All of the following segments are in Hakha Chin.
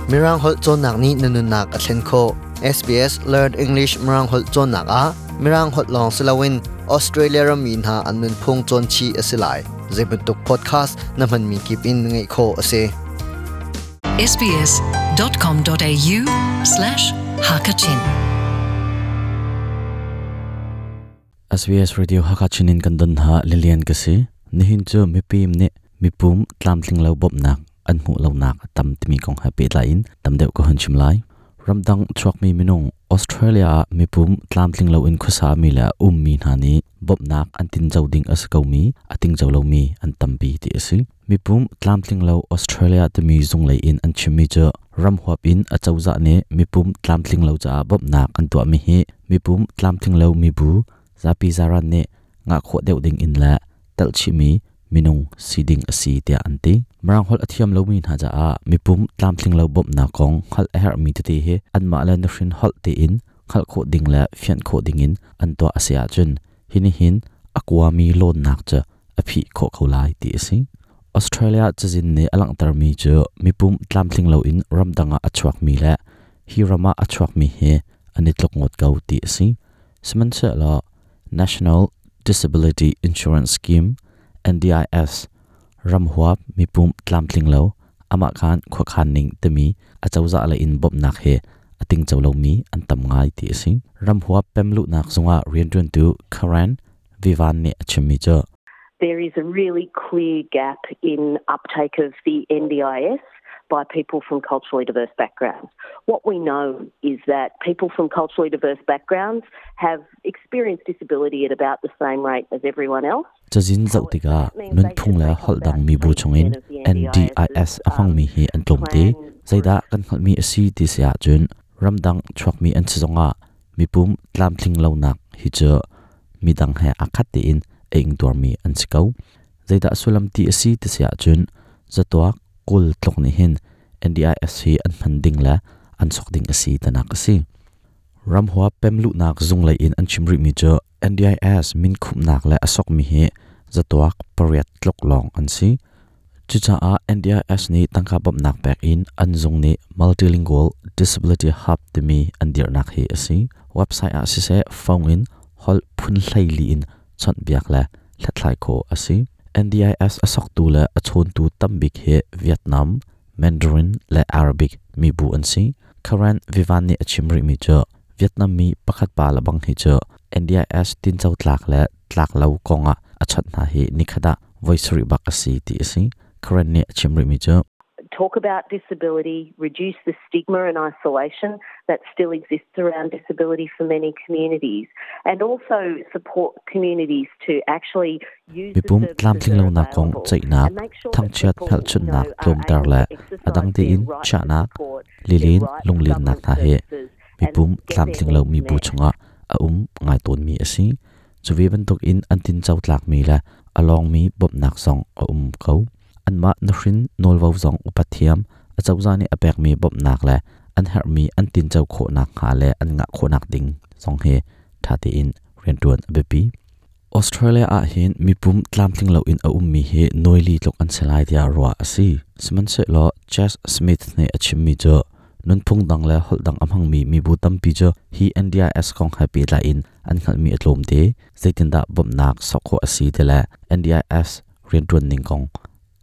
Mirang holh cawnnak nih na nunnak a thlen khawh. SBS Learn English Mirang holh cawnnak ah Mirang holh lawng si loin Australia rammi hna an nunphung cawn chih a si lai. Zeibantuk podcast na hmanmi kip in ngaih khawh a si. sbs.com.au/hakachin SBS Radio Hakachin in kan don ha Lilian ka si. Nihin cu mipim nih mipum tlamtling lo bawmhnak an hmuh lonak a tam timi kong he pehtlai in tam deuh ka hun chim lai. Ramdang chuakmi minung Australia ah mipum tlamtling loin khuasa mi le ummi hna nih bawmhnak an tinco ding a si komi a tingco lomi an tampi ti a si. Mipum tlamtling lo Australia timi zunglei in an chimmi cu ram huap in a cozah nih mipum tlamtling lo caah bawmhnak an tuahmi hi mipum tlamtling lo mibu zapi zaran nih ngah khawh deuh ding in le telhchihmi minung si ding a si tiah an ti. Mirang holh a thiam lomi hna caah mipum tlamtling lo bawmhnak kong hngalh a herhmi tete hi anmah le nuhrin holh tein hngalh khawh ding le fianh khawh ding in an tuah a si ahcun hi nih hin a kuami lawnnak cu a phih khawh ko lai ti a si. Australia cazin nih a langhtermi cu mipum tlamtling loin ramdang ah a chuakmi le hi ram ah a chuakmi hi an i tluk ngawt ko ti a si. Sihmanhsehlaw National Disability Insurance Scheme NDIS ramhuap mipum tlamtling lo amah khan khuakhan ning timi acozah lei in bawmhnak he a tingco lomi an tam ngai ti a si. Ramhuap pemluhnak zungah rianṭuantu Karen Vivan nih a chimmi cu There is a really clear gap in uptake of the NDIS by people from culturally diverse backgrounds. What we know is that people from culturally diverse backgrounds have experienced disability at about the same rate as everyone else. Cazin zoh tikah nunphung le holh dang mibu chungin NDIS a hmangmi hi an tlawmte. Zeidah kan hngalhmi a si ti si ahcun ramdang chuakmi an si zongah mipum tlamtling lonak hi cu midang he aa khat tein a ingtuarmi an si ko. Zeidah sullam ti a si ti si ahcun zatuak 20 tluk nih hin NDIS hi an hman ding le an sok ding a si tinak a si. Ramhua pemluhnak zung lei in an chim rihmi cu NDIS minkhumhnak le a sokmi hi zatuak 8 tluk lawng an si. Cucaah NDIS nih tangka bawmhnak pek in an zung nih Multilingual Disability Hub timi an dirhnak hi a si. Website ah siseh phone in holh phun 14 in chawnhbiak le hlathlai khawh a si. NDIS a soktu le a chawntu tambik hi Vietnam, Mandarin le Arabic mibu an si. Karen Vivan nih a chim rihmi cu Vietnam mi pakhat pa le bang hi cu NDIS tinco tlak le tlak lo kongah a chawnh hna hi nikhat ah voi sarih bak a si ti a si. Karen nih a chim rihmi cu talk about disability, reduce the stigma and isolation that still exists around disability for many communities, and also support communities to actually use the Mipum services tlamtling that are lonak kong available ceihnak, and make sure that thangchiat people, you know, hmelchunhnak are tlawmter able le to a exercise dang their tein right to chiahnak, support, their lilin right to lunglinnak government hna he services, and mipum get their tlamtling lo needs mibu met. chungah a um ngai tawnmi a si. Cu ve bantukin an tinco tlakmi le a lawngmi bawmhnak zong a um ko. Anmah nuhrin nawlvo zong upat thiam, acozah nih a pekmi bawmhnak le an herhmi an tinco khawhnak hnga le an ngah khawhnak ding zong hi ṭha tein rianṭuan a biapi. Australia ah hin mipum tlamtling loin a ummi hi nawili tluk an si lai tiah ruah a si. Sihmanhsehlaw Chas Smith nih a chimmi cu nunphung dang le holh dang a hmangmi mibu tampi cu hi NDIS kong he pehtlai in an hngalhmi a tlawm te. Zeitindah bawmhnak sok khawh a si ti le NDIS rianṭuan ning kong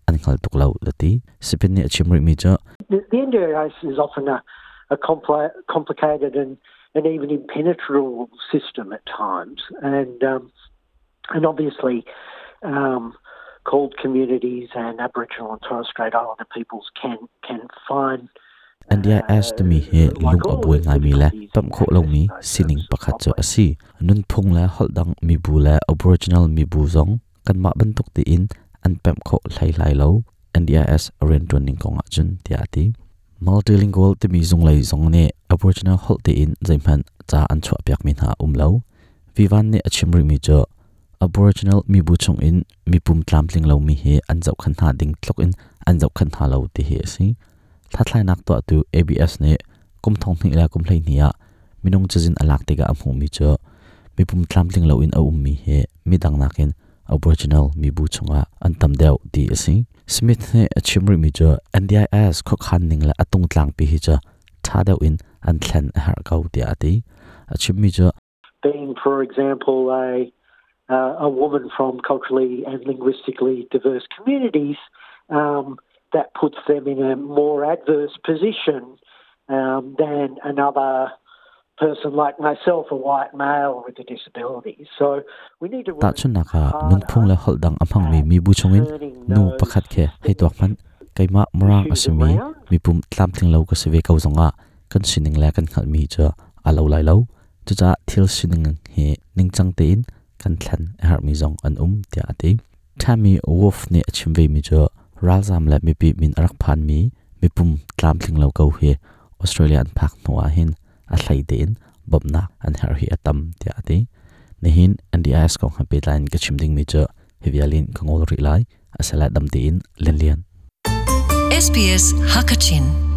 an hngal tuk lo a ti. Sipin nih a chim rihmi cu The NDIS is often a complicated and even impenetrable system at times, and obviously called communities and Aboriginal and Torres Strait Islander peoples can find NDIS timi hi lung a buai ngaimi le pemh khawh lomi sining pakhat cu a si. Nunphung le holh dang mibu le Aboriginal mibu zong kanmah bantuk tein an pemh khawh hlei lai lo. NDIS rianṭuan ning kong ahcun tiah a ti. Multilingual timi zunglei zong nih Aboriginal holh tein zeihmanh ca an chuahpiakmi hna a um lo. Vivan nih a chim rihmi cu Aboriginal mibu chungin mipum tlamtling lomi hi an zohkhenh hna ding tluk in an zohkhenh hna lo ti hi a si. Hlathlainak tuahtu ABS nih kum 2012 ah minung cazin a lak tikah a hmuhmi cu mipum tlamtling loin a ummi hi midang nakin Aboriginal mibu chungah an tam deuh ti a si. Smith nih a chim rihmi cu NDIS khuakhan ning le a tungtlang pi hi cu ṭha deuh in an thlen a herh ko tiah a ti. A chimmi cu being, for example, a a woman from culturally and linguistically diverse communities, that puts them in a more adverse position than another person like myself, a white male with a disability. So we need to work Tahchunhnak ah, nunphung le holh dang a hmangmi mibu chungin nu pakhat khi hei tuak hmanh. Keimah Mirang a simi mipum tlamtling lo ka si ve ko zongah kan sining le kan hngalhmi cu aa lo lai lo. Cucaah thil sining hi ningcang tein kan thlen a herhmi zong an um tiah a ti. Tammy Wolf nih a chim vemi cu ralzaam le mipi min a rak phanmi mipum tlamtling lo ko hi Australia an phak hnu ah hin a hlei tein bawmhnak an herh hi a tam tiah a ti. Nihin NDIS kong he pehtlai in ka chim dingmi cu hi vial in ka ngol rih lai. Asala dam tein Lianlian. SBS Hakachin.